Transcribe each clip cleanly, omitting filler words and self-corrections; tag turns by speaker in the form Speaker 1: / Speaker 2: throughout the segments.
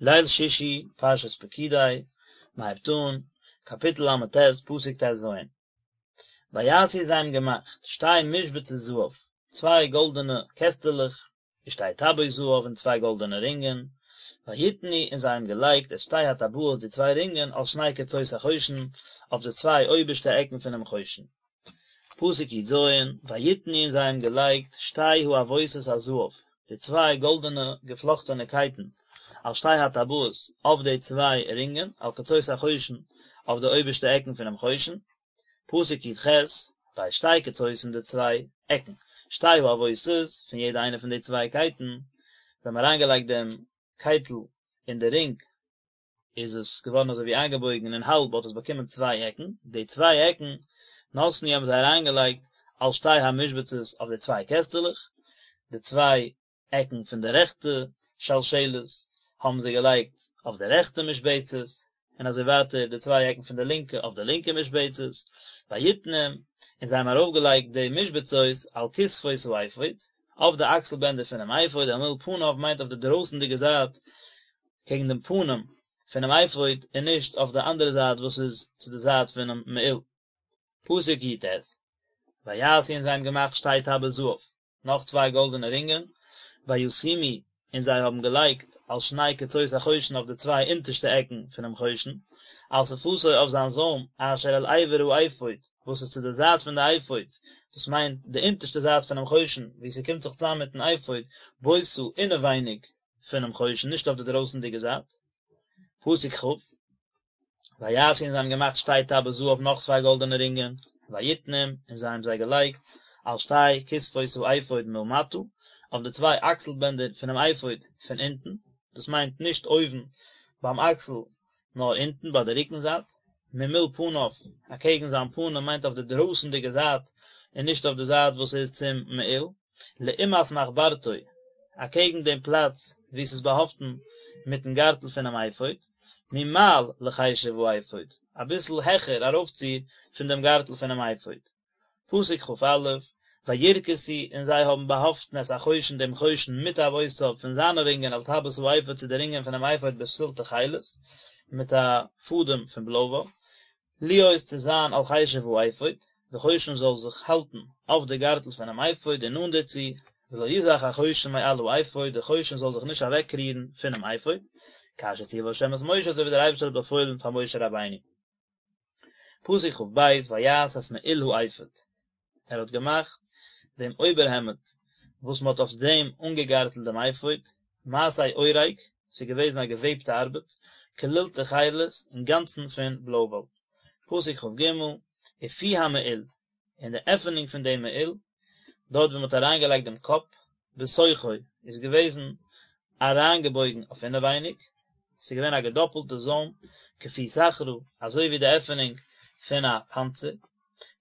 Speaker 1: ליל שישי, פרשת פקודי, מען הייבט אן, קאפיטל ל"ט, פסוק ט"ז. ויעשו זיי האבן געמאכט, שתי משבצות זהב, צוויי גאלדענע קעסטעלעך, ושתי טבעות זהב און צוויי גאלדענע רינגען, ויתנו און זיי האבן געלייגט את שתי הטבעות די צוויי רינגען על שני קצות החושן, אויף די צוויי אויבערשטע עקן פונעם חושן. פסוק י"ז, ויתנו און זיי האבן געלייגט שתי העבותות הזהב, די צוויי גאלדענע געפלאכטענע קייטן, על שתי הטבעות, אויף די צוויי רינגען, על קצות החושן, אויף די אויבערשטע עקן פונעם חושן. פסוק י"ח, ואת שתי קצות און די צוויי עקן, שתי העבותות, פון יעדע איינע פון די צוויי קייטן, זיי האבן אריינגעלייגט דעם קייטל אין די רינג, איז עס געווארן אזוי ווי איינגעבויגן אין האלב האט עס באקומען צוויי עקן, די צוויי עקן נתנו האבן זיי אריינגעלייגט על שתי המשבצות אויף די צוויי קעסטעלעך, די צוויי עקן פון די רעכטע שלשלת האבן זיי געלייגט אויף די רעכטע משבצת, און אזוי ווייטער די צוויי עקן פון די לינקע אויף די לינקע משבצת, ויתנם, און זיי האבן ארויפגעלייגט די משבצות על כתפות האפוד, אויף די אקסל בענדער פונעם אפוד, אל מול פניו מיינט אויף די דרויסנדיגע זייט קעגן דעם פנים פונעם אפוד און נישט אויף די אנדערע זייט וואס איז צו די זייט פונעם מעיל. פסוק י"ט, ויעשו און זיי האבן געמאכט שתי טבעות זהב, נאך צוויי גאלדענע רינגען, וישימו און זיי האבן געלייגט על שני קצות החושן אויף די צוויי אונטערשטע עקן פונעם חושן, על שפתו אויף זיין זוים אשר אל עבר האפוד, וואס איז צו די זייט פון די אפוד, דאס מיינט די אונטערשטע זייט פונעם חושן, וואו ס'קומט זיך צוזאם מיטן אפוד, ביתה אינעווייניג פונעם חושן, נישט אויף די דרויסנדיגע זייט. פסוק כ', ויעשו און זיי האבן געמאכט שתי טבעות זהב נאך צוויי גאלדענע רינגען, ויתנם און זיי האבן זיי געלייגט על שתי כתפות האפוד מלמטה, אויף די צוויי אקסל בענדער פונעם אפוד פון אונטן, דאס מיינט נישט אויבן ביים אקסל נאר אונטן ביי די רוקן זייט, ממול פניו, אקעגן זיין פנים מיינט אויף די דרויסנדיגע זייט און נישט אויף די זייט וואס איז צום מעיל. לעומת מחברתו, אקעגן דעם פלאץ וואו ס'איז באהאפטן מיטן גארטל פונעם אפוד, ממעל לחשב האפוד, אביסל העכער ארויפציר פון דעם גארטל פונעם אפוד. פסוק כ"א, וירכסו, און זיי האבן באהאפטן את החושן דעם חושן מטבעותיו פון זיינע רינגען אל טבעות האפוד צו די רינגען פונעם אפוד בפתיל תכלת, מיט א פאדעם פון בלוי וואל. להיות צו זיין על חשב האפוד, די חושן זאל זיך האלטן אויף די גארטל פונעם אפוד און נאנט דערצו, ולא יזח החושן מעל האפוד, די חושן זאל זיך נישט אוועקרירן פונעם אפוד, כאשר ציווה ה' את משה אזוי ווי דער אייבערשטער האט באפוילן פאר משה רבינו. פסוק כ"ב, ויעש את מעיל האפוד, ער האט געמאכט דעם אויבערהעמד וואס מען האט אויף דעם אנגעגארטלט דעם אפוד, מעשה אורג, ס'איז געוועזן א געוועבטע ארבעט, כליל תכלת, אינגאנצן פון בלוי וואל. פסוק כ"ג, ופי המעיל, און די עפענונג פון דעם מעיל, דארט וואו מען האט אריינגעלייגט דעם קאפ, בתוכו, איז געוועזן אריינגעבויגן אויף אינעווייניג, ס'איז געווען א געדאפלטע זוים, כפי סכרה, אזוי ווי די עפענונג פון א פאנצער.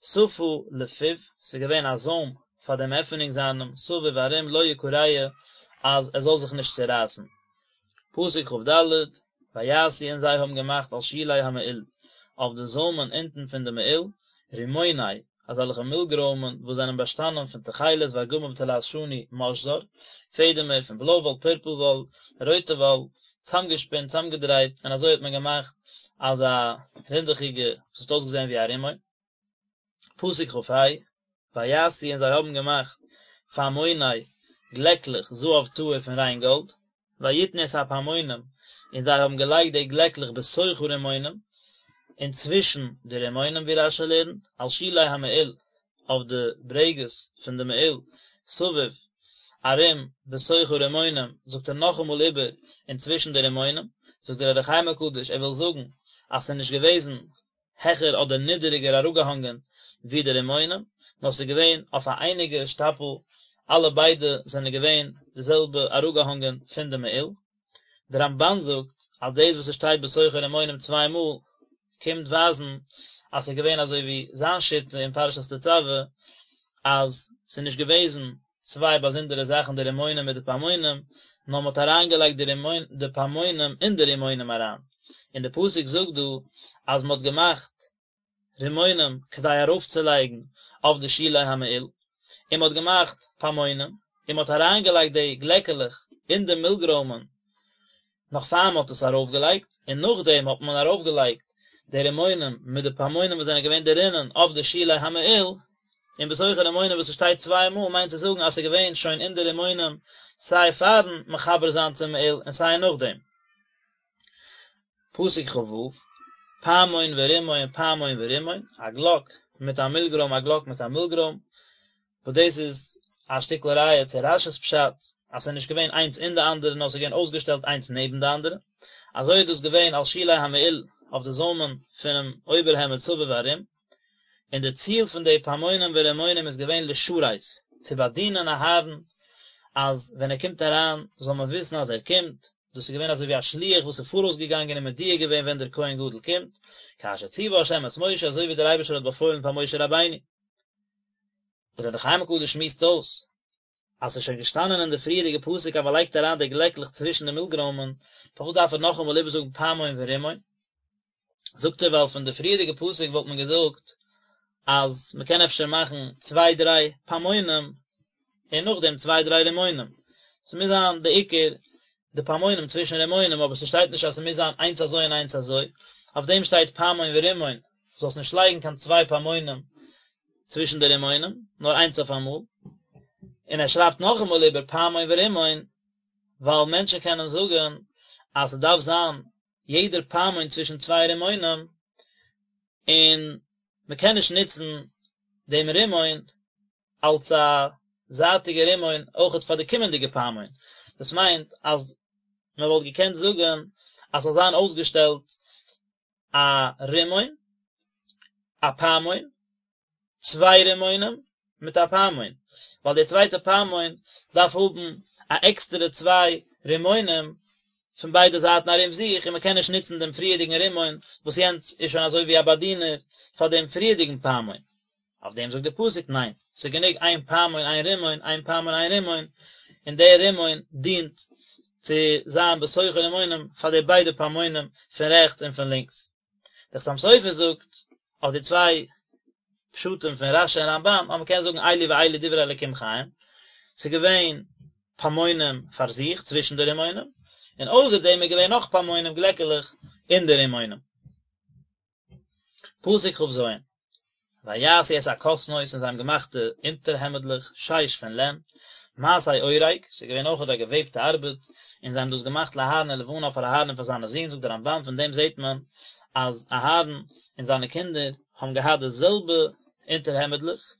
Speaker 1: שפה לפיו, ס'איז געווען א זוים פאר דעם עפענונג זיינעם, סביב ארום לא יקרע אז עס זאל זיך נישט צערייסן. פסוק כ"ד, ויעשו און זיי האבן געמאכט על שולי המעיל, אויף די זוימען אונטן פון די מעיל, רימוני, אזעלכע מילגרוימען וואס זענען באשטאנען פון תכלת וארגמן ותולעת שני משזר, פעדעמער פון בלוי וואל, פורפל וואל, רויטע וואל, צאמגעשפינט, צאמגעדרייט, און אזוי האט מען געמאכט אזא רינדעכיגע וואס האט אויסגעזען ווי א רימון. פסוק כ"ה, ויעשו און זיי האבן געמאכט פעמוני גלעקלעך זהב טהור פון ריין גאלד, ויתנו את הפעמונים און זיי האבן געלייגט די גלעקלעך בתוך הרימונים, אינצווישן די רימונים ווי רש"י לערנט, על שולי המעיל, אויף די ברעגעס פון די מעיל, סביב, ארום, בתוך הרימונים, זאגט ער נאכאמאל איבער, אינצווישן די רימונים, זאגט דער אור החיים הקדוש, ער וויל זאגן אז ס'איז נישט געוועזן העכער אדער נידעריגער אראפגעהאנגען ווי די רימונים, נאר ס'איז געווען אויף א אייניגע שטאפל, אלע ביידע זענען געווען די זעלבע אראפגעהאנגען פון די מעיל. דער רמב"ן זאגט אז דאס וואס עס שטייט בתוך הרימונים צוויי מאל קומט ווייזן אז ס'איז געווען אזוי ווי זיין שיטה אין פרשת תצוה אז ס'איז נישט געוועזן צוויי באזונדערע זאכן די רימונים מיט די פעמונים, נאר מ'האט אריינגעלייגט די רימון די פעמונים אין די רימונים אריין, און די פסוק זאגט דא אז מ'האט געמאכט רימונים כדי ארויפצולייגן אויף די שולי המעיל, און מ'האט געמאכט פעמונים, און מ'האט אריינגעלייגט די גלעקעלעך אין די מילגרוימען. נאך פאר מען האט עס ארויפגעלייגט, און נאכדעם האט מען ארויפגעלייגט די רימונים מיט די פעמונים וואס זענען געווען דערינען אויף די שולי המעיל, און בתוך הרימונים וואס עס שטייט צוויי מאל מיינט צו זאגן אז עס איז געווען שוין אין די רימונים סיי פארן מחבר זיין צום מעיל און סיי נאכדעם. פסוק כ"ו, פעמון ורימון פעמון ורימון, א גלאק מיט א מילגרוים א גלאק מיט א מילגרוים, וואס דאס איז א שטיקל ראיה צו רש"י'ס פשט אז ס'איז נישט געווען איינס אין די אנדערע נאר ס'איז געווען אויסגעשטעלט איינס נעבן די אנדערע, אזוי איז דאס געווען על שולי המעיל אויף די זוימען פונעם אויבערהעמד סביב ארום, און די ציל פון די פעמונים ורימונים איז געווען לשרת, צו באדינען אהרן אז ווען ער קומט אריין זאל מען וויסן אז ער קומט, דאס איז געווען אזוי ווי א שליח וואס איז פאראויס געגאנגען און מודיע געווען ווען דער כהן גדול קומט, כאשר ציווה ה' את משה אזוי ווי דער אייבערשטער האט באפוילן פאר משה רבינו. דער אור החיים הקדוש שמועסט אויס אז ס'איז שוין געשטאנען אין די פריערדיגע פסוק אז מ'לייגט אריין די גלעקלעך צווישן די מילגרוימען, פארוואס דארף ער נאכאמאל איבערזאגן פעמון ורימון? זאגט ער ווייל פון די פריערדיגע פסוק וואלט מען געזאגט אז מ'קען אפשר מאכן צוויי דריי פעמונים און נאכדעם צוויי דריי רימונים, ס'מוז זיין די עיקר די פעמונים צווישן רימונים אבער ס'שטייט נישט אז ס'מוז זיין איינס אזוי און איינס אזוי, אויף דעם שטייט פעמון ורימון, זאלסט נישט לייגן קיין צוויי פעמונים צווישן די רימונים, נאר איינס אויף אמאל, און ער שרייבט נאכאמאל איבער פעמון ורימון, ווייל מענטשן קענען זאגן אז ס'דארף זיין יעדער פעמון צווישן צוויי רימונים, און מ'קען נישט נוצן דעם רימון אלס א זייטיגע רימון אויכעט פאר די קומענדיגע פעמון, דאס מיינט אז מ'וואלט געקענט זאגן אז ס'זאל זיין אויסגעשטעלט א רימון, א פעמון, צוויי רימונים מיט א פעמון, ווייל די צווייטע פעמון דארף האבן א עקסטערע צוויי רימונים פון ביידע זייטן ארום זיך, און מען קען נישט נוצן דעם פריערדיגן רימון וואס יענץ איז שוין אזוי ווי א באדינער פאר דעם פריערדיגן פעמון. אויף דעם זאגט דער פסוק ניין, ס'איז גענוג איין פעמון איין רימון, איין פעמון איין רימון, און דער רימון דינט צו זיין בתוך הרימונים פאר די ביידע פעמונים פון רעכטס און פון לינקס. דער חתם סופר זאגט אויף די צוויי פשטים פון רש"י און רמב"ן אז מ'קען זאגן אלו ואלו דברי אלקים חיים, ס'איז געווען פעמונים פאר זיך צווישן די רימונים, און אויסער דעם איז געווען נאך פעמונים גלעקעלעך אין די רימונים. פסוק כ"ז, ויעשו את הכתנות און זיי האבן געמאכט די אונטערהעמדלעך שש פון לען, מעשה אורג, ס'איז געווען אויכעט א געוועבטע ארבעט, און זיי האבן דאס געמאכט לאהרן ולבניו פאר אהרן און פאר זיינע זין, זאגט דער רמב"ן פון דעם זעט מען אז אהרן און זיינע קינדער האבן געהאט די זעלבע אונטערהעמדלעך,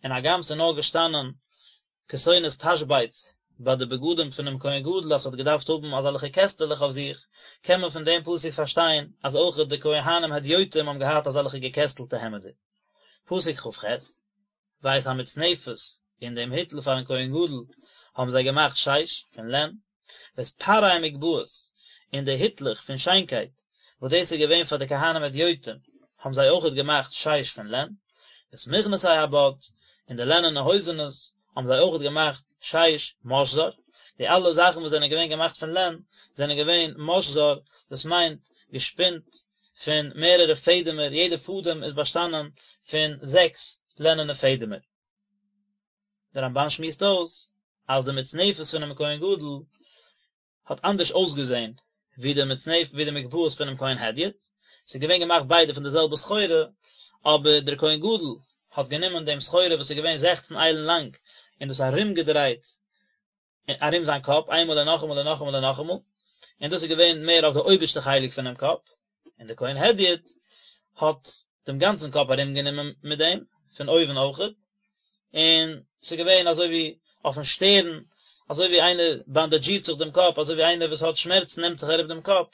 Speaker 1: און הגם ס'איז נאר געשטאנען כתונת תשבץ ביי די בגדים פונעם כהן גדול אז ס'האט געדארפט האבן אזעלכע קעסטעלעך אויף זיך, קען מען פון דעם פסוק פארשטיין אז אויכעט די כהנים הדיוטים האבן געהאט אזעלכע געקעסטלטע העמעדער. פסוק כ"ח, ואת המצנפת, און דעם היטל פארן כהן גדול האבן זיי געמאכט שש, פון לען, ואת פארי המגבעות, און די היטלעך פון שיינקייט, וואס דאס איז געווען פאר די כהנים הדיוטים, האבן זיי אויכעט געמאכט שש פון לען, ואת מכנסי הבד, און די לענענע הויזענעס, האבן זיי אויכעט געמאכט שש משזר, די אלע זאכן וואס זענען געווען געמאכט פון לען, זענען געווען משזר, דאס מיינט געשפינט פון מערערע פעדעמער, יעדע פאדעם איז באשטאנען פון זעקס לענענע פעדעמער. דער רמב"ן שמועסט אויס אז די מצנפת פונעם כהן גדול האט אנדערש אויסגעזען ווי די מצנפת ווי די מגבעות פונעם כהן הדיוט, ס'איז געווען געמאכט ביידע פון די זעלבע סחורה, אבער דער כהן גדול האט גענומען דעם סחורה וואס איז געווען זעכצן איילן לאנג און דאס ארומגעדרייט ארום זיין קאפ איינמאל און נאכאמאל און נאכאמאל און נאכאמאל, און דאס איז געווען מער אויף די אויבערשטע חלק פונעם קאפ, און דער כהן הדיוט האט דעם גאנצן קאפ ארומגענומען מיט דעם, פון אויבן אויכעט, און ס'איז געווען אזוי ווי אויפן שטערן, אזוי ווי איינער באנדאדזשירט זיך דעם קאפ, אזוי ווי איינער וואס האט שמערצן נעמט זיך ארום דעם קאפ,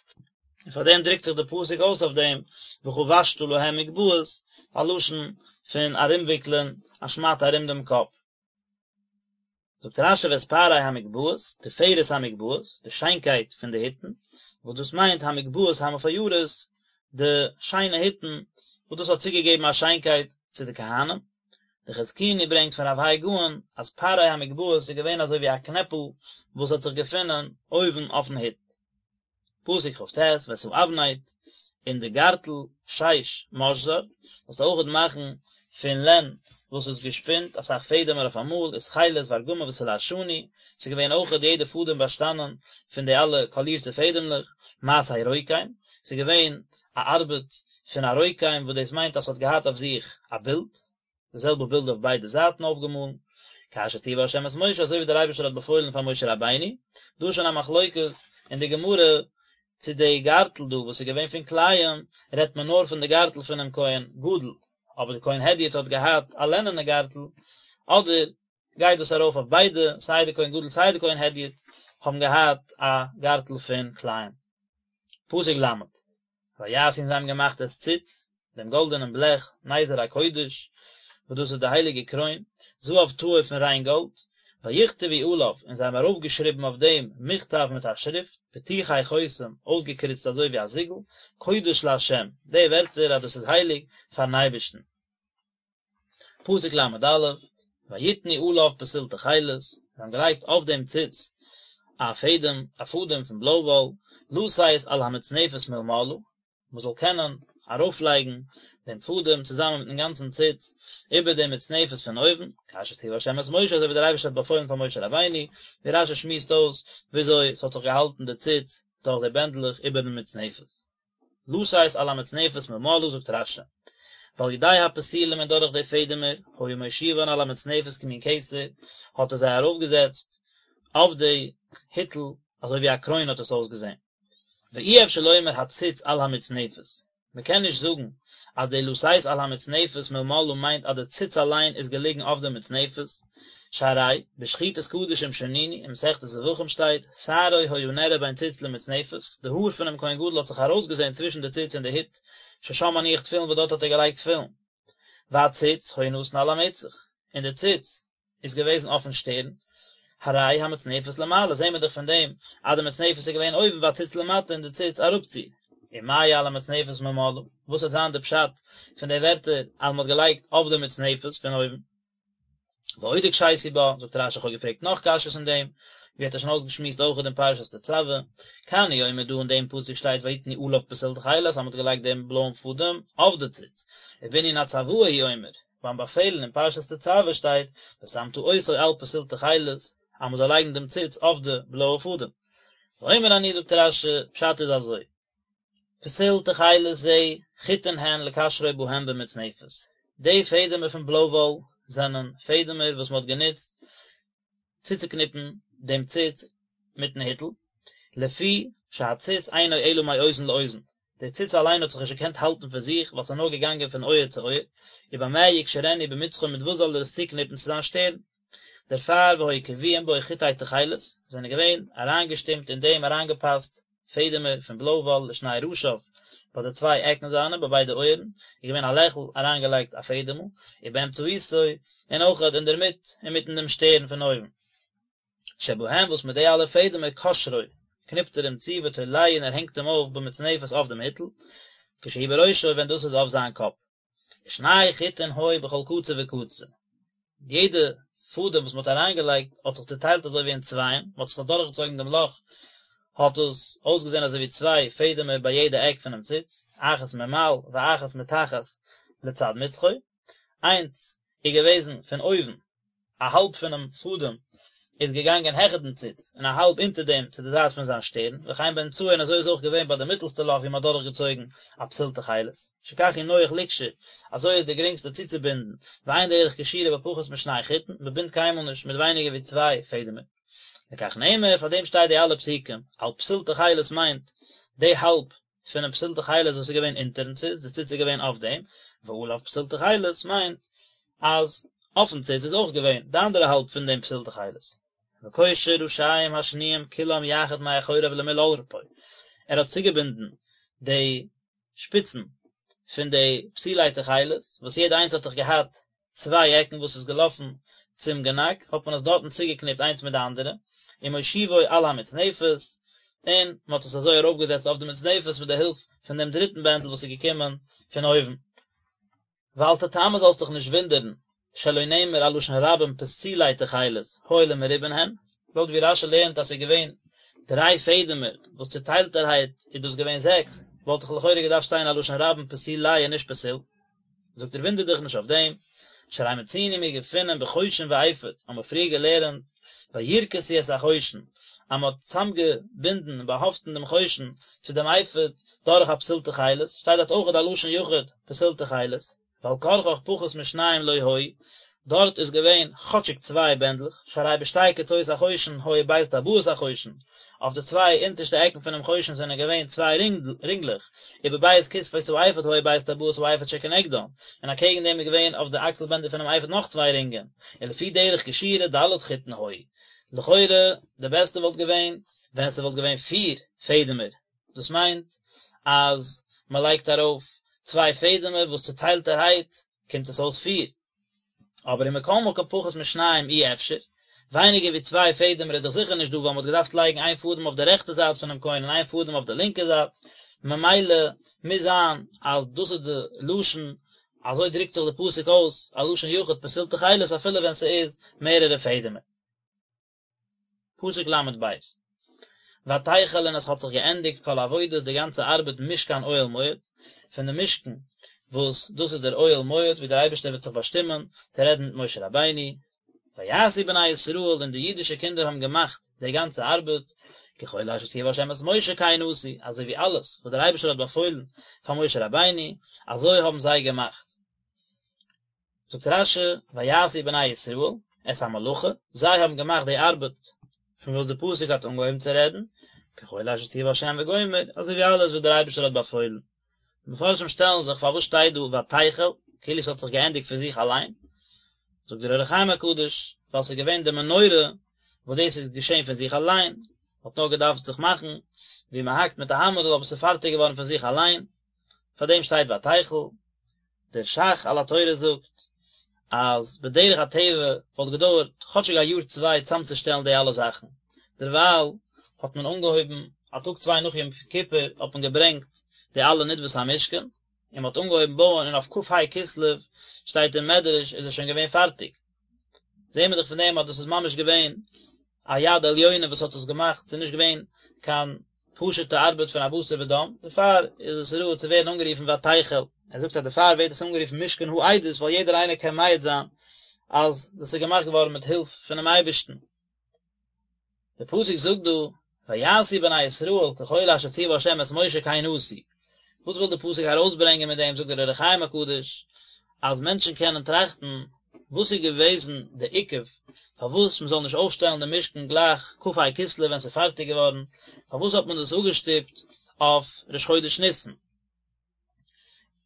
Speaker 1: און פאר דעם דרוקט זיך דער פסוק אויס אויף דעם, וחבשת להם מגבעות, א לשון פון ארומוויקלען א שמאטע ארום דעם קאפ. זאגט רש"י ואת פארי המגבעות, תפארת המגבעות, די שיינקייט פון די היטן, וואס דאס מיינט המגבעות המפוארות, די שיינע היטן, וואס דאס האט צוגעגעבן א שיינקייט צו די כהנים. די חזקוני ברענגט פון רב האי גאון אז פארי המגבעות איז געווען אזוי ווי א קנעפל וואס האט זיך געפונען אויבן אויפן היט. פסוק כ"ט, ואת האבנט, און די גארטל, שש, משזר, זאלסטו אויכעט מאכן פון לען. וואס איז געשפינט אסאך פעדעמער אויף אמאל, ותכלת וארגמן ותולעת שני, ס'איז געווען אויכעט יעדע פאדעם באשטאנען פון די אלע קאלירטע פעדעמלעך, מעשה רוקם, ס'איז געווען א ארבעט פון א רוקם וואס דאס מיינט אז ס'האט געהאט אויף זיך א בילד, די זעלבע בילד אויף ביידע זייטן אויפגעמאלן, כאשר ציווה ה' את משה אזוי ווי דער אייבערשטער האט באפוילן פאר משה רבינו, דא איז שוין א מחלוקת אין די גמרא צו די גארטל דא וואס איז געווען פון כלאים רעדט מען נאר פון די גארטל פונעם כהן גדול, אבער די כהן הדיוט האט געהאט א לענענע גארטל, אדער גייט דאס ארויף אויף ביידע, סיי די כהן גדול סיי די כהן הדיוט האבן געהאט א גארטל פון כלאים. פסוק ל'. ויעשו און זיי האבן געמאכט את ציץ, דעם גאלדענעם בלעך, נזר הקודש, וואס דאס איז די הייליגע קרוין, זהב טהור פון ריין גאלד, ויכתבו עליו, און זיי האבן ארויפגעשריבן אויף דעם מכתב מיט א שריפט, פתוחי חותם, אויסגעקריצט אזוי ווי א זיגל, קודש לה', די ווערטער אז דאס איז הייליג פארן אייבערשטן. פסוק ל"א, ויתנו עליו פתיל תכלת, זיי האבן געלייגט אויף דעם ציץ א פעדעם, א פאדעם פון בלוי וואל, לתת על המצנפת מלמעלה, מען זאל קענען ארויפלייגן דעם פאדעם צוזאמען מיטן גאנצן ציץ איבער דעם מצנפת פון אויבן, כאשר ציווה השם את משה, אזוי ווי דער אייבערשטער האט באפוילן פאר משה רבינו, ווי רש"י שמועסט אויס וויאזוי ס'האט זיך געהאלטן די ציץ דורך די בענדלעך איבערן מצנפת. לתת על המצנפת מלמעלה זאגט רש"י, ועל ידי הפתילים און דורך די פעדעמער, היה מושיבן על המצנפת כמין כתר, האט ער זיי ארויפגעזעצט אויף די היטל אזוי ווי א קרוין האט עס אויסגעזען. ואי אפשר לומר הציץ על המצנפת, מען קען נישט זאגן אז די לתת על המצנפת מלמעלה מיינט אז די ציץ אליין איז געליגן אויף די מצנפת, שהרי בשחיטת קדשים שנינו, אין מסכת זבחים שטייט, שערו היה נראה בין ציץ למצנפת, די האר פונעם כהן גדול האט זיך ארויסגעזען צווישן די ציץ און די הוט, ששם מניח תפילין וואס דארט האט ער געלייגט תפילין. והציץ היה נתון על המצח, און די ציץ איז געוועזן אויפן שטערן, הרי המצנפת למעלה, זעהן מיר דאך פון דעם אז די מצנפת איז געווען אויבן והציץ למטה און די ציץ אראפצו. ומה על המצנפת מלמעלה, וואס וועט זיין די פשט פון די ווערטער אז מען האט געלייגט אויף די מצנפת פון אויבן? ועוד הקשיתי בה, זאגט רש"י איך האב געפרעגט נאך קשיות אין דעם, ווי האט ער שוין אויסגעשמועסט אויכעט אין פרשת תצוה, כאן הוא אומר דא אין דעם פסוק שטייט ויתנו עליו פתיל תכלת אז מען האט געלייגט דעם בלויען פאדעם אויף די ציץ, ובענין הצוואה הוא אומר, ביים באפעלן אין פרשת תצוה שטייט ושמת אותו על פתיל תכלת אז מען זאל לייגן דעם ציץ אויף די בלויע פאדעם. ואומר אני זאגט רש"י, פשט איז אזוי, פתיל תכלת זה חוטין הן לקשרו בהם במצנפת, די פעדעמער פון בלוי וואל זענען פעדעמער וואס מען האט גענוצט צוצוקניפן דעם ציץ מיטן היטל, לפי שהציץ אינו אלא מאוזן לאוזן, דער ציץ אליין האט זיך נישט געקענט האלטן פון זיך ווייל ס'איז נאר געגאנגען פון אויער צו אויער, ובמה יקשרנו במצחו מיט וואס זאל ער עס צוקניפן צו זיין שטערן? דערפאר והיו קבועים בו חוטי תכלת, זענען געווען אריינגעשטימט אין דעם אריינגעפאסט פעדעמער פון בלוי וואל לשני ראשיו, ביי די צוויי עקן זיינע, ביי ביידע אויערן, איז געווען א לעכל אריינגעלייגט א פעדעמל, ובאמצעיתו, און אויכעט אינדערמיט, אינמיטן דעם שטערן פון אויבן. שבהם וואס מיט די אלע פעדעמער קושרו, קניפט ער אים צו ותולהו און ער הענגט אים אויף במצנפת אויף דעם היטל, כשהוא בראשו ווען דאס איז אויף זיין קאפ. ושני חוטין היו בכל קצה וקצה, יעדע פאדעם וואס מען האט אריינגעלייגט האט זיך צוטיילט אזוי ווי אין צווייען, מען האט עס אדורכגעצויגן דעם לאך האט עס אויסגעזען אזוי ווי צוויי פעדעמער ביי יעדע עק פונעם ציץ, אחת ממעל ואחת מתחת לצד מצחו, איינס איז געוועזן פון אויבן א האלב פונעם פאדעם איז געגאנגען העכער דעם ציץ, און א האלב אונטער דעם צו די זייט פון זיין שטערן, וכן באמצעו און אזוי איז אויך געווען ביי די מיטעלסטע לאך ווי מען האט דורכגעצויגן א פתיל תכלת, שכך הוא נוח לקשור, אזוי איז די גרינגסטע צוצובינדן, ואין דרך קשירה בפחות משני חוטין, מען בינדט קיינמאל נישט מיט ווייניגער ווי צוויי פעדעמער. לכך נאמר, פאר דעם שטייט די אלע פסוקים, על פתיל תכלת מיינט די האלב פונעם פתיל תכלת וואס איז געווען אונטערן ציץ, די ציץ איז געווען אויף דעם, ועליו פתיל תכלת מיינט אז אויפן ציץ איז אויך געווען די אנדערע האלב פון דעם פתיל תכלת. וקושר ראשיהם השניים כולם יחד מאחוריו למול עורפו, ער האט צוגעבינדן די שפיצן פון די פתילי תכלת, וואס יעדע איינס האט דאך געהאט צוויי עקן וואס איז געלאפן צום גענאק, האט מען עס דארטן צוגעקניפט איינס מיט די אנדערע, ומושיבו על המצנפת, און מען האט עס אזוי ארויפגעזעצט אויף די מצנפת מיט די הילף פון דעם דריטן בענדל וואס איז געקומען פון אויבן. ואל תתמה זאלסט דיך נישט וואונדערן, שלא נאמר א לשון רבים פתילי תכלת, הואיל ומרובין הן, לויט ווי רש"י לערנט אז ס'איז געווען דריי פעדעמער וואס צוטיילטערהייט איז דאס געווען זעקס, וואלט דאך לכאורה געדארפט שטיין א לשון רבים פתילי און נישט פתיל. זאגט ער וואונדער דיך נישט אויף דעם, שהרי מצינו מיר געפינען בחושן ואפוד, האבן מיר פריער געלערנט וירכסו את החושן, אז מען האט צוזאמגעבינדן און באהאפטן דעם חושן צו דעם אפוד דורך א פתיל תכלת, שטייט דארט אויך א לשון יחיד פתיל תכלת, ועל כרחך פחות משניים לא היו, דארט איז געווען כאטשיג צוויי בענדלעך, שהרי בשתי קצות החושן היו ב' טבעות החושן, אויף די צוויי אונטערשטע עקן פונעם חושן זענען געווען צוויי רינגלעך, ובב' כתפות האפוד היו ב' טבעות האפוד שכנגדן, און אקעגן דעם איז געווען אויף די אקסל בענדער פונעם אפוד נאך צוויי רינגען, ולפי דרך קשירה ד' חוטין היו. לכאורה די בעסטע וואלט געווען ווען ס'וואלט געווען פיר פעדעמער, דאס מיינט אז מ'לייגט ארויף צוויי פעדעמער וואס צוטיילטערהייט קומט עס אויס פיר. אבער ומכל מקום פחות משניים אי אפשר, ווייניגער ווי צוויי פעדעמער איז דאך זיכער נישט דא ווייל מ'האט געדארפט לייגן איין פאדעם אויף די רעכטע זייט פונעם כהן און איין פאדעם אויף די לינקע זייט, ממילא מוז זיין אז דאס איז די לשון, אזוי דרוקט זיך די פסוק אויס, א לשון יחיד פתיל תכלת אפילו ווען ס'איז מערערע פעדעמער. פסוק ל' ב' ותחל און עס האט זיך געענדיגט כל עבודת די גאנצע ארבעט משכן אוהל מועד, פון די משכן וואס דאס איז דער אוהל מועד ווי דער אייבערשטער וועט זיך באשטימען צו רעדן מיט משה רבינו, ויעשו בני ישראל און די אידישע קינדער האבן געמאכט די גאנצע ארבעט, ככל אשר ציווה ה' את משה כן עשו, אזוי ווי אלעס וואס דער אייבערשטער האט באפוילן פאר משה רבינו, אזוי האבן זיי געמאכט. זאגט רש"י, ויעשו בני ישראל את המלאכה, זיי האבן געמאכט די ארבעט פון וואס די פסוק האט אנגעהויבן צו רעדן, ככל אשר ציווה השם וגומר, אזוי ווי אלעס וואס דער אייבערשטער האט באפוילן. די מפרשים שטעלן זיך פארוואס שטייט דא ותחל, כאילו עס האט זיך געענדיגט פון זיך אליין, זאגט דער אור החיים הקדוש, ווייל ס'איז געווען די מנורה וואס דאס איז געשען פון זיך אליין, האט נאר געדארפט זיך מאכן ווי מען האקט מיט א האמערל אבער ס'איז פארטיג געווארן פון זיך אליין, פאר דעם שטייט ותחל. דער ש"ך על התורה זאגט אז בדרך הטבע וואלט געדויערט כאטשיג א יאר צוויי צאמצושטעלן די אלע זאכן, דערווייל האט מען אנגעהויבן א טאג צוויי נאך יום כיפור האט מען געברענגט די אלע נדבות המשכן, און מען האט אנגעהויבן בויען און אויף כ"ה כסלו שטייט אין מדרש איז עס שוין געווען פארטיג. זעהן מיר דאך פון דעם אז דאס איז ממש געווען א יד עליונה וואס האט עס געמאכט, ס'איז נישט געווען קיין פשוט'ע ארבעט פון א בשר ודם, דערפאר איז עס ראוי צו ווערן אנגערופן ותחל. ער זאגט אז דערפאר ווערט עס אנגערופן משכן העדות ווייל יעדער איינער קען מעיד זיין אז דאס איז געמאכט געווארן מיט הילף פונעם אייבערשטן. דער פסוק זאגט דא, ויעשו בני ישראל ככל אשר ציווה ה' את משה כן עשו. וואס וויל דער פסוק ארויסברענגען מיט דעם, זאגט דער אור החיים הקדוש, אז מענטשן קענען טראכטן, וואס איז געוועזן די עיכוב, פארוואס מען זאל נישט אויפשטעלן דעם משכן גלייך כ"ה כסלו ווען ס'איז פארטיג געווארן, פארוואס האט מען דאס אפגעשטופט אויף ראש חודש ניסן?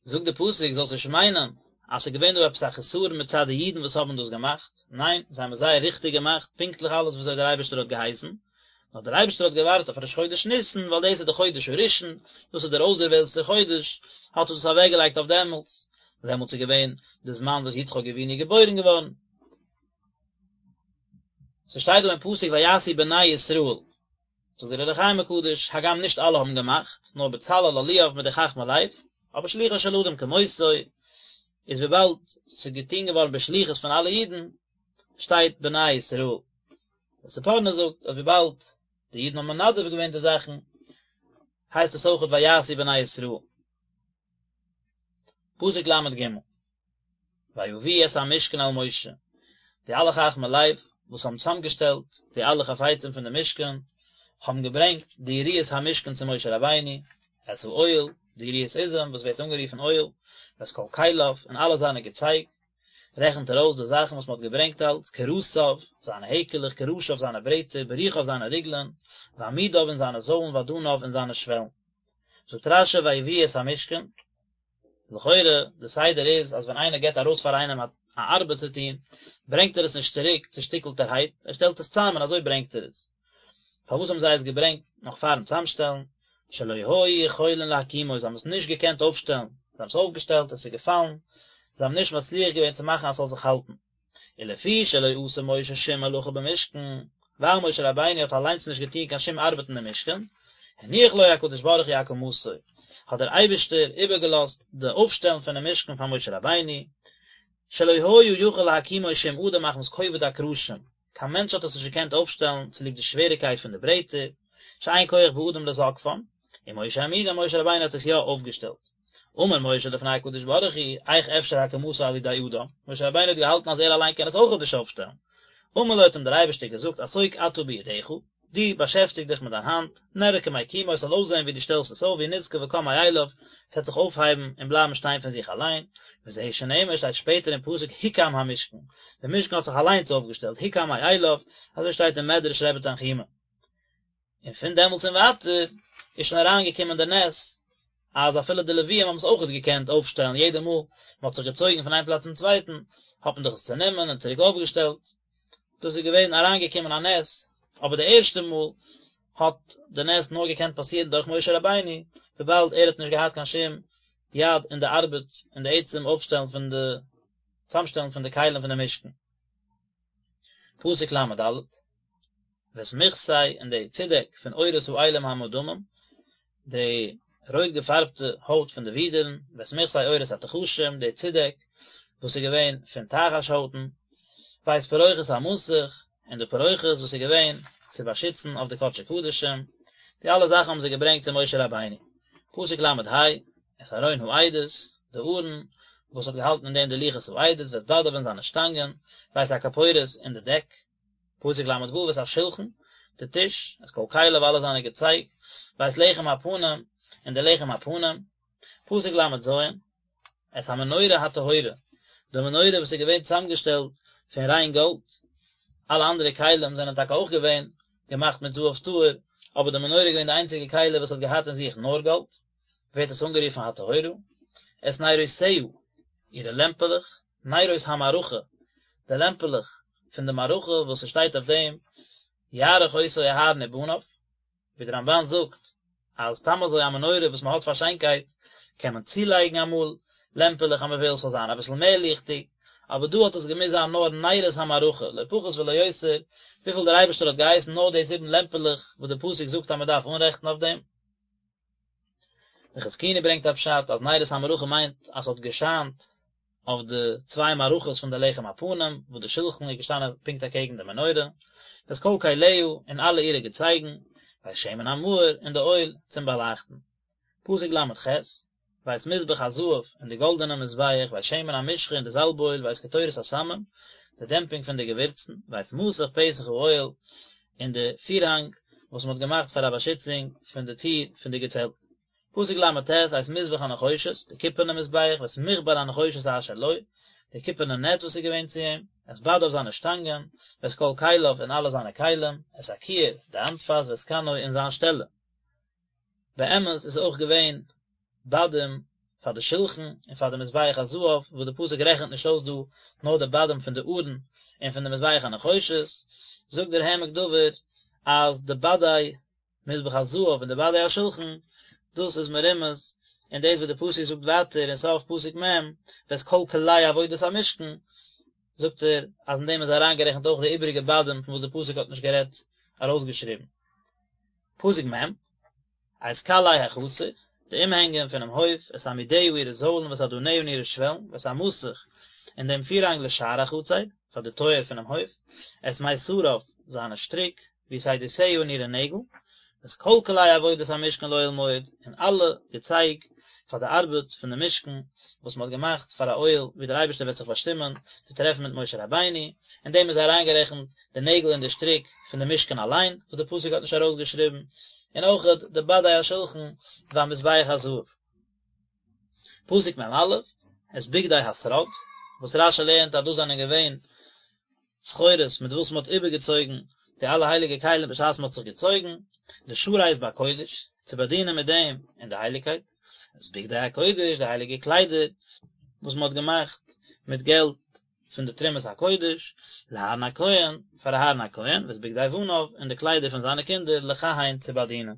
Speaker 1: זאגט די פסוק זאלסט נישט מיינען אז ס'איז געווען דא עפעס א חסרון מצד די אידן וואס האבן דאס געמאכט, ניין, זיי האבן עס זייער ריכטיג געמאכט, פונקטליך אלעס וויאזוי דער אייבערשטער האט געהייסן, נאר דער אייבערשטער האט געווארט אויף ראש חודש ניסן, ווייל דאס איז די חודש הראשון, דאס איז דער אויסדערוועלטסטער חודש, האט ער דאס אוועקגעלייגט אויף דעמאלטס, דעמאלטס איז געווען די זמן וואס יצחק אבינו איז געבוירן געווארן. ס'שטייט דא אין פסוק ויעשו בני ישראל, זאגט דער אור החיים הקדוש, הגם נישט אלע האבן געמאכט, נאר בצלאל אהליאב מיט די חכמי לב, אבער שלוחו של אדם כמותו, איז וויבאלד ס'איז געטון געווארן בשליחות פון אלע אידן, שטייט בני ישראל. דער ספורנו זאגט אז וויבאלד די אידן האבן מנדב געווען די זאכן, הייסט עס אויכעט ויעשו בני ישראל. פסוק ל"ג ויביאו את המשכן אל משה, די אלע חכמי לב וואס האבן צוזאמגעשטעלט די אלע חפצים פון די משכן, האבן געברענגט די יריעות המשכן צו משה רבינו, את האוהל, די יריעות עזים וואס ווערט אנגערופן אוהל, ואת כל כליו, און אלע זיינע געצייג, רעכנט ער אויס די זאכן וואס מען האט געברענגט אלץ, קרסיו, זיינע העקעלעך, קרשיו, זיינע ברעטער, בריחיו, זיינע ריגלען, ועמודיו, און זיינע זוילן, ואדניו, און זיינע שוועלן. זאגט רש"י ויביאו את המשכן, לכאורה די סדר איז אז ווען איינער געבט ארויס פאר איינעם א ארבעט צו טון, ברענגט ער עס נישט צוריק צושטיקלטערהייט, ער שטעלט עס צאם און אזוי ברענגט ער עס. פארוואס האבן זיי עס געברענגט נאך פארן צאמשטעלן? שלא היו יכולין להקימו, זיי האבן עס נישט געקענט אויפשטעלן, זיי האבן עס אויפגעשטעלט, עס איז געפאלן, זיי האבן נישט מצליח געווען צו מאכן אז ס'זאל זיך האלטן. ולפי שלא עשה משה שום מלאכה במשכן, ווייל משה רבינו האט אליינס נישט געטון קיין שום ארבעט אין די משכן, הניח לו הקדוש ברוך הוא הקמתו, האט דער אייבערשטער איבערגעלאזט די אויפשטעלן פונעם משכן פאר משה רבינו, שלא היה יכול להקימו שום אדם מחמת כובד הקרשים, קיין מענטש האט עס נישט געקענט אויפשטעלן צוליב די שוועריקייט פון די ברעטער, שאין כח באדם לזקפם, ומשה העמידו, משה רבינו האט עס יא אויפגעשטעלט. אמר משה לפני הקדוש ברוך הוא, איך אפשר הקמתו על ידי אדם, משה רבינו האט געהאלטן אז ער אליין קען עס אויכעט נישט אויפשטעלן. אמר לו האט אים דער אייבערשטער געזאגט עסוק אתה בידך, דו באשעפטיג דיך מיט דיין האנט, נראה כמקימו עס זאל אויסזען ווי דו שטעלסט עס אויף והוא נזקף וקם מאליו, עס וועט זיך אויפהייבן און בלייבן שטיין פון זיך אליין, וזהו שנאמר שטייט שפעטער אין פסוק הוקם המשכן, דער משכן האט זיך אליינס אויפגעשטעלט, הוקם מאליו, אזוי שטייט אין מדרש רבי תנחומא. און פון דעמאלטס און ווייטער איז שוין אריינגעקומען די נס אז אפילו די לוויים האבן עס אויכעט געקענט אויפשטעלן, יעדע מאל מען האט זיך געצויגן פון איין פלאץ צום צווייטן האט מען דאך עס צענומען און צוריק אויפגעשטעלט, דאס איז געווען אריינגעקומען א נס, אבער די ערשטע מאל האט די נס נאר געקענט פאסירן דורך משה רבינו, וויבאלד ער האט נישט געהאט קיין שום יד אין די ארבעט אין די עצם אויפשטעלן פון די צאמשטעלן פון די כלים פון די משכן. פסוק ל"ד, ואת מכסה און די צודעק פון עורות האילים המאודמים, די רויט געפארבטע הויט פון די ווידערן, ואת מכסה עורות התחשים, די צודעק וואס איז געווען פון תחש הויטן, ואת פרוכת המסך, און די פרוכת וואס איז געווען צו באשיצן אויף די קדשי קדשים, די אלע זאכן האבן זיי געברענגט צו משה רבינו. פסוק ל"ה, את ארון העדות, די ארון וואס האט געהאלטן אין דעם די לוחות העדות, ואת בדיו און זיינע שטאנגען, ואת הכפורת און די דעק, פסוק ל"ו, ואת השלחן, די טיש, את כל כליו אלע זיינע געצייג, ואת לחם הפנים, און די לחם הפנים, פסוק ל"ז, את המנורה הטהורה, די מנורה וואס איז געווען צוזאמגעשטעלט פון ריין גאלד, אלע אנדערע כלים זענען טאקע אויך געווען געמאכט מיט זהב טהור, אבער די מנורה איז געווען די איינציגע כלי וואס האט געהאט אין זיך נאר גאלד, ווערט עס אנגערופן הטהורה, את נרותיה, אירע לעמפעלעך, נרות המערכה, די לעמפעלעך פון די מערכה וואס עס שטייט אויף דעם, יערוך אותו אהרן ובניו, ווי דער רמב"ן זאגט אז סתם אזוי א מנורה וואס מען האט פאר שיינקייט קען מען צולייגן אמאל לעמפעלעך אז מען וויל ס'זאל זיין אביסל מער ליכטיג, אבער דא האט עס געמוזט זיין נאר נרות המערכה, לא פחות ולא יותר, וויפיל דער אייבערשטער האט געהייסן נאר די זיבן לעמפעלעך וואס דער פסוק זאגט אז מען דארף אנרעכטן אויף דעם. דער חזקוני ברענגט א פשט אז נרות המערכה מיינט אז ס'האט געשיינט אויף די צוויי מערכות פון די לחם הפנים וואס די שלחן איז געשטאנען פונקט אקעגן די מנורה, ואת כל כליה און אלע אירע געצייגן, ואת שמן המאור און די אויל צום באלייכטן. פסוק ל"ח, ואת מזבח הזהב און די גאלדענע מזבח, ואת שמן המשחה און די זאלב אויל, ואת קטורת הסמים, די דעמפינג פון די געווירצן, ואת מסך פתח האוהל, און די פירהאנג וואס מען האט געמאכט פאר א באשיצונג פון די טיר פון די געצעלט. פסוק ל"ט, את מזבח הנחושת, די קופערנע מזבח, ואת מכבר הנחושת אשר לו, די קופערנע נעץ וואס איז געווען צו אים, את בדיו זיינע שטאנגען, ואת כל כליו און אלע זיינע כלים, את הכיור, די האנטפאס, ואת כנו און זיין שטעלע. באמת איז אויך געווען בדים פאר די שלחן און פאר די מזבח הזהב, וואס די פסוק רעכנט נישט אויס דא נאר די בדים פון די ארון און פון די מזבח הנחושת, זאגט דער העמק דבר אז די בדי מזבח הזהב און די בדי השלחן, דאס איז מרומז אין דאס וואס די פסוק זאגט ווייטער אין סוף פסוק מ', ואת כל כלי עבודת המשכן, זאגט ער אז אין דעם איז אריינגערעכנט אויך די איבעריגע בדים פון וואס די פסוק האט נישט גערעדט ארויסגעשריבן. פסוק מ', את קלעי החצר, די אומהענגען פונעם הויף, את עמודיה אירע זוילן ואת אדניה און אירע שוועלן, ואת המסך, און דעם פירהאנג לשער החצר, פאר די טויער פונעם הויף, את מיתריו, זיינע שטריק, ויתדותיה און אירע נעגל, ואת כל כלי עבודת המשכן לאוהל מועד, און אלע געצייג פאר די ארבעט פון די משכן, וואס מען האט געמאכט פאר א אוהל, ווי דער אייבערשטער וועט זיך באשטימען צו טרעפן מיט משה רבינו, אין דעם איז אריינגערעכנט די נעגל און די שטריק פון די משכן אליין, וואס די פסוק האט נישט ארויסגעשריבן, און אויכעט די בדי השלחן והמזבח הזהב. פסוק מ"א, את בגדי השרד, וואס רש"י לערנט אז דאס זענען געווען סחורות מיט וואס מען האט איבערגעצויגן די אלע הייליגע כלים בשעת מען האט זיך געצויגן, לשרת בקודש, צו באדינען מיט דעם אין די הייליגקייט, את בגדי הקודש, די הייליגע קליידער וואס מען האט געמאכט מיט געלט פון די תרומת הקודש, לאהרן הכהן, פאר אהרן הכהן, ואת בגדי בניו, און די קליידער פון זיינע קינדער, לכהן, צו באדינען.